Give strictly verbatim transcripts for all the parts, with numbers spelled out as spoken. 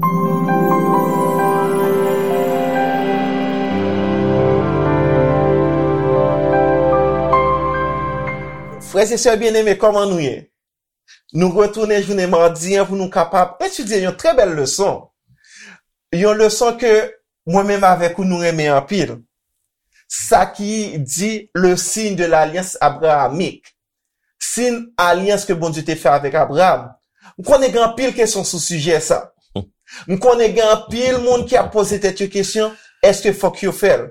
Frè e sè byeneme, kòman nou ye? Nou retounen jounen madi an pou nou kapab etidye yon trè bèl leson. Yon leson ke mwen menm avèk ou nou renmen anpil. Sa ki di le signe de l'alliance abrahamique. Siy alyans ke Bondye te fè avèk Abraram. M konnen gen anpil kesyon sou sijè sa. M konnen gen anpil moun ki ap poze tèt yo kesyon, èske fòk yo fè l?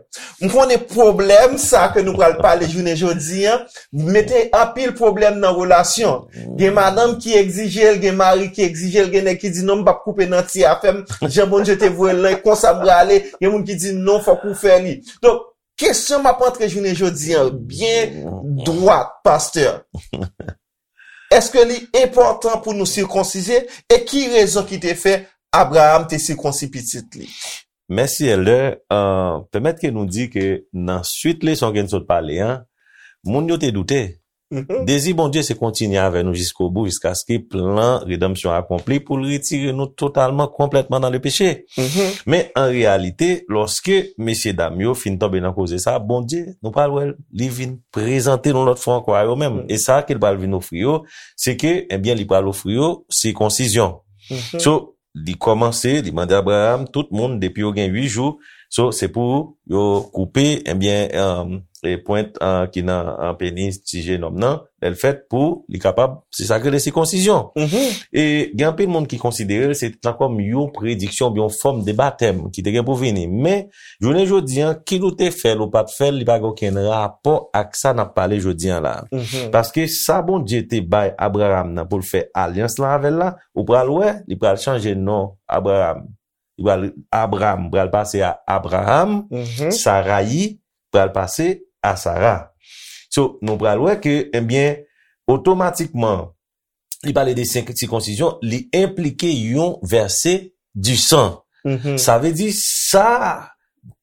M konnen pwoblèm sa ke nou pral pale jounen jodi an, mete anpil pwoblèm nan relasyon. Gen madanm ki egzije l, gen mari ki egzije l, gen nèg ki di, "Non, m p ap koupe nan ti afè m, jan Bondye te voye l lan, e konsa m prale." Gen moun ki di, "Non, fòk ou fè li." Donk, kesyon m ap antre jounen jodi an byen dwat, pastè. Èske li enpòtan pou nou sikonsize? E ki rezon ki te fè Abraram te sikonsi pitit li? Mèsi, Èldè. Uh, pèmèt ke nou di ke nan swit leson ke n sot pale an, moun yo te doute. Mhm. Dezi Bondye se kontinye avè nou jiskobou, jiskaske plan redanmsyon akonpli pou l retire nou totalman, konplètman nan le peche. Mhm. Men an reyalite, lòske mesye dam yo fin tonbe nan koze sa, Bondye, nou pral wè, li vin prezante nou lòt fwa ankò a yo menm. Mhm. E sa ke l pral vin ofri yo, se ke, ebyen, li pral ofri yo sikonsizyon. Mhm. So, li kòmanse, li mande Abraram, tout moun, depi yo gen uit jou, so, se pou yo koupe, ebyen, um, e pwent, uh, ki nan, uh, penis ti jenòm nan, lè l fèt, pou li kapab, se sa k rele sikonsizyon. Mhm. E gen anpil moun ki konsidere l se tan kòm yon prediksyon, yon fòm de batèm ki te gen pou vini. Men, jounen jodi an, kit ou te fè l ou pa t fè l, li pa gen okenn rapò ak sa n ap pale jodi an la. Mhm. Paske sa Bondye te bay Abraram nan pou l fè alyans lan avè l la, ou pral wè, li pral chanje non Abraram. Li pral, Abram pral pase a Abraham, mhm, Sarayi pral pase a Sara. So, nou pral wè ke, ebyen, otomatikman, li pale de senk sikonsizyon, li enplike yon vèse di san. Mhm. Sa vle di sa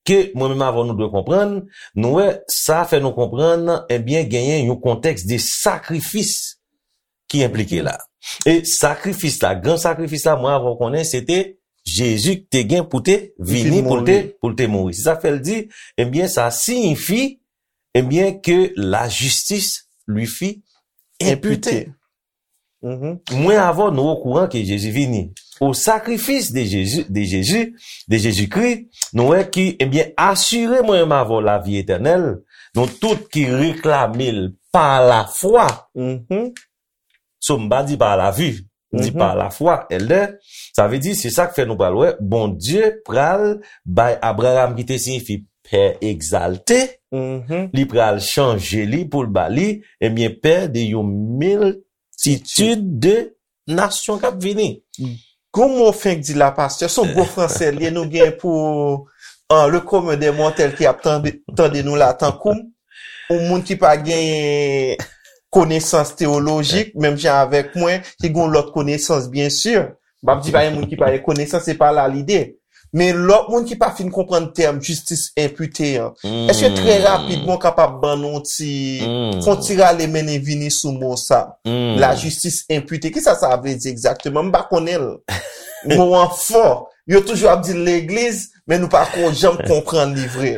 ke mwen menm avè w nou dwe konprann, nou wè sa fè nou konprann, ebyen, genyen yon kontèks de sakrifis ki enplike la. E sakrifis la, gran sakrifis la, mwen avè w konnen, se te Jezi ki te gen pou te vini, pou l te, pou l te mouri. Se sa k fè l di, ebyen, sa siyifi, ebyen, ke la justice lui fut imputée. Mhm. Mwen avè w, nou okouran ke Jezi vini. Au sacrifice de Jésus, de Jésus, de Jésus-Christ, nou wè ki, ebyen, asire mwen menm avè w lavi etènèl, nou tout ki reklame l pa lafwa. Mhm. So, m pa di pa la vue, m di, mhm, pa lafwa, Èldè. Sa vle di, se sa k fè nou pral wè, Bondye pral bay Abraham, ki te siyifi pè egzalte, mhm, li pral chanje li pou l ba li, ebyen, pè de yon miltitid de nasyon k ap vini. Gon mo fenk di la, pastè, se yon gwo fransè li ye, nou gen pou, uh, le commun des mortels ki ap tande, tande nou la, tankou m, yon moun ki pa gen konesans teyolojik, menm jan avèk mwen, ki gen lòt konesans, byen si. M p ap di pa gen moun ki pa gen konesans, se pa la lide. Men lòt moun ki pa fin konprann tèm jistis enpite an, èske trè rapidman w kapab ban nou ti, fè yon ti rale mennen vini sou mo sa? La justice imputée. Kisa sa vle di egzakteman? M pa konnen l. Mo an fò. Yo toujou ap di l legliz, men nou pa ko janm konprann li vre.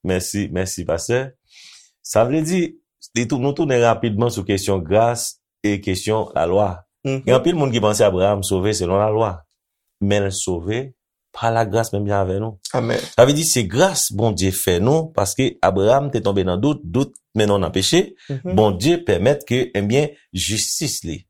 Mèsi, mèsi, pastè. Sa vle di, li tou-, nou tounen rapidman sou kesyon gras e kesyon lalwa. Mhm. Gen anpil moun ki panse Abraham sove selon lalwa, men l sove pa lagras menm jan avè nou. Amèn. Sa vle di se gras Bondye fè nou, paske Abraham te tonbe nan dout, dout mennen w nan peche. Mhm. Bondye pèmèt ke, ebyen, jistis li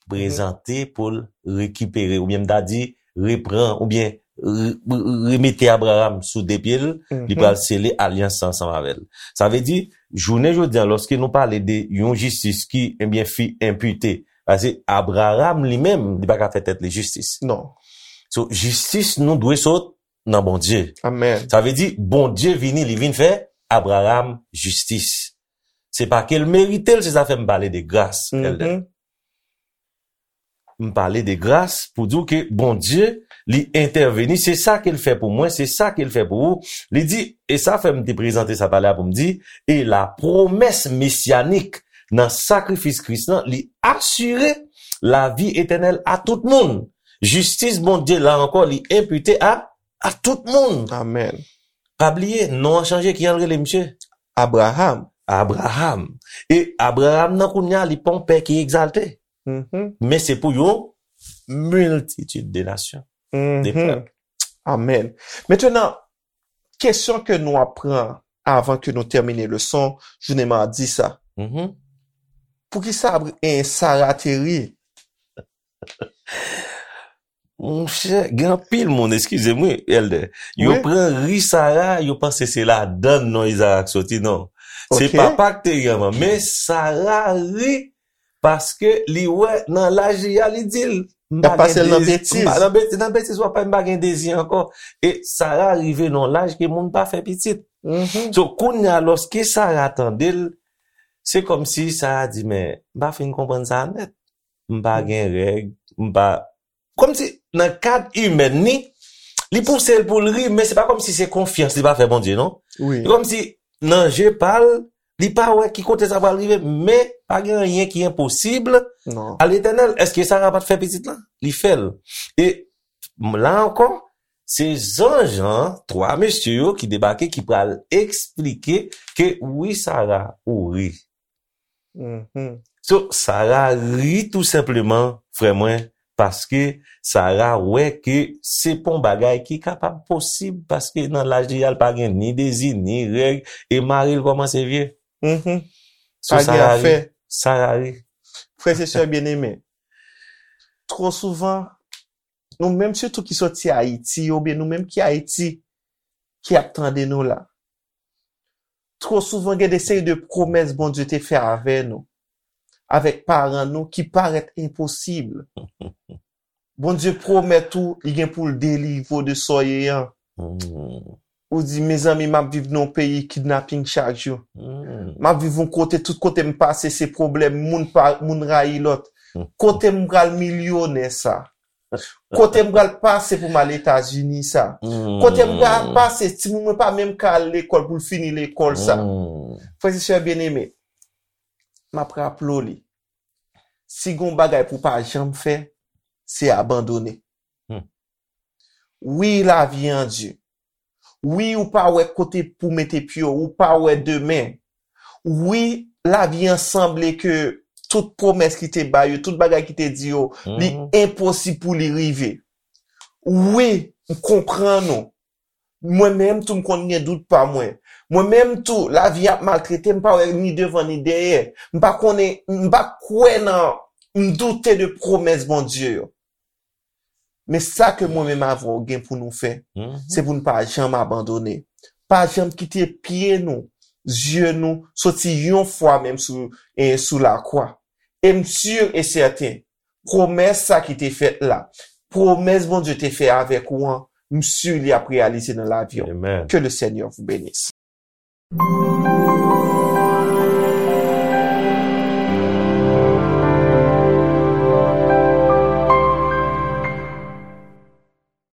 prezante pou l rekipere, oubyen m ta di, repran, oubyen re-, re-, remete Abraham sou de pye l, li pral sele alyans ansanm avè l. Sa vle di, jounen jodi a, lòske nou pale de yon jistis ki, ebyen, fut imputée, paske Abraham li menm, li pa ka fè tèt li jistis. Non. So, jistis nou dwe sot nan Bondye. Amèn. Sa vle di, Bondye vini, li vin fè Abraham jistis. Se pa ke l merite l, se sa fè m pale de gras, Èldè. M pale de gras pou di w ke Bondye, li entèveni, se sa ke l fè pou mwen, se sa ke l fè pou ou. Li di, e sa fè m te prezante sa talè a pou m di, e la promesse messianique nan sakrifis Kris lan, li asire lavi etènèl a tout moun. Jistis Bondye la ankò, li enpite a, a tout moun. Amèn. Pa bliye, non an chanje, ki jan l rele, misye? Abraham. Abraham. E Abraham nan kounye a, li pa yon pè ki egzalte. Mhm. Men se pou yon miltitid de nasyon, de Mhm. pèp. Amèn. Mentnan, kesyon ke nou ap pran avan ke nou tèmine leson jounen madi sa. Mhm. Poukisa Abra- eh, Sara te ri? Monchè, gen anpil moun, eskize m wi, Elder. Yo Wi. pran ri Sara, yo panse se ladan non Izarak soti, non. Se Ok. papa k te ri anvan. Men Sara ri paske li wè nan laj li a, li di l, "M Y ap pa pase gen l nan dezi, betiz. m pa nan beti-, nan betiz w ap fè, m pa gen dezi ankò." E Sara rive nan laj ke moun pa fè pitit. Mhm. So, kounye a, lòske Sara tande l, se kòmsi Sara di, "Men, m pa fin konprann sa nèt. M pa gen règ, m pa," kòmsi nan kad imèn ni, li pouse l pou l ri, men se pa kòmsi se konfyans li pa fè Bondye, non. Wi. Se kòmsi nan je pa l, li pa wè ki kote sa pral rive, men pa gen anyen ki enposib Non. a Letènèl. Èske Sara pa t fè pitit la? Li fè l. E m- la ankò, se zanj an, twa mesye yo ki debake, ki pral eksplike ke wi, Sara, ou ri. Mhm. So, Sara ri tou senpleman, frè mwen, paske Sara wè ke se pa yon bagay ki kapab posib, paske nan laj li a, l pa gen ni dezi, ni règ, e mari l kòmanse vye. Mhm. So, Pa gen Sara ri. afè. Sara ri. Frè e sè byeneme, twò souvan, nou menm sitou ki soti Ayiti, oubyen nou menm ki Ayiti, ki ap tande nou la, twò souvan gen de seri de pwomès Bondye te fè avè nou, avèk paran nou, ki parèt enposib. Bondye pwomèt ou, li gen pou l delivre w de sa w ye an. Mm. Ou di, "Mezanmi, m ap viv nan yon peyi kidnaping chak jou. Mm. M ap viv yon kote, tout kote m pase, se pwoblèm, moun pa, moun rayi lòt. Kote m pral milyonè sa? Kote m pral pase pou m al Etazini sa? Mm. Kote m pral pase, timoun mwen pa menm ka al lekòl pou l fini lekòl sa?" Mm. Frè e sè byeneme, m ap raple w li. Si gon bagay pou pa janm fè, se abandone. Hmm. Wi, lavi an di. Wi, ou pa wè kote pou mete pye w, ou pa wè demen. Wi, lavi an sanble ke tout pwomès ki te ba yo, tout bagay ki te di yo, li Mhm. enposib pou li rive. Wi, m konprann ou. Mwen menm tou, m konn gen dout pa mwen. Mwen menm tou, lavi ap maltrete m, m pa wè ni devan ni dèyè. M pa konnen, m pa kwè nan, m doute de pwomès Bondye yo. Men sa ke mwen menm avè w gen pou nou fè, Mhm. se pou n pa janm abandone. Pa janm kite pye nou, zye nou, soti yon fwa menm sou, e sou lakwa. E m si e sèten, pwomès sa ki te fèt la, pwomès Bondye te fè avèk ou an, m si li ap reyalize nan lavi w. Amen. Que le Seigneur vous bénisse.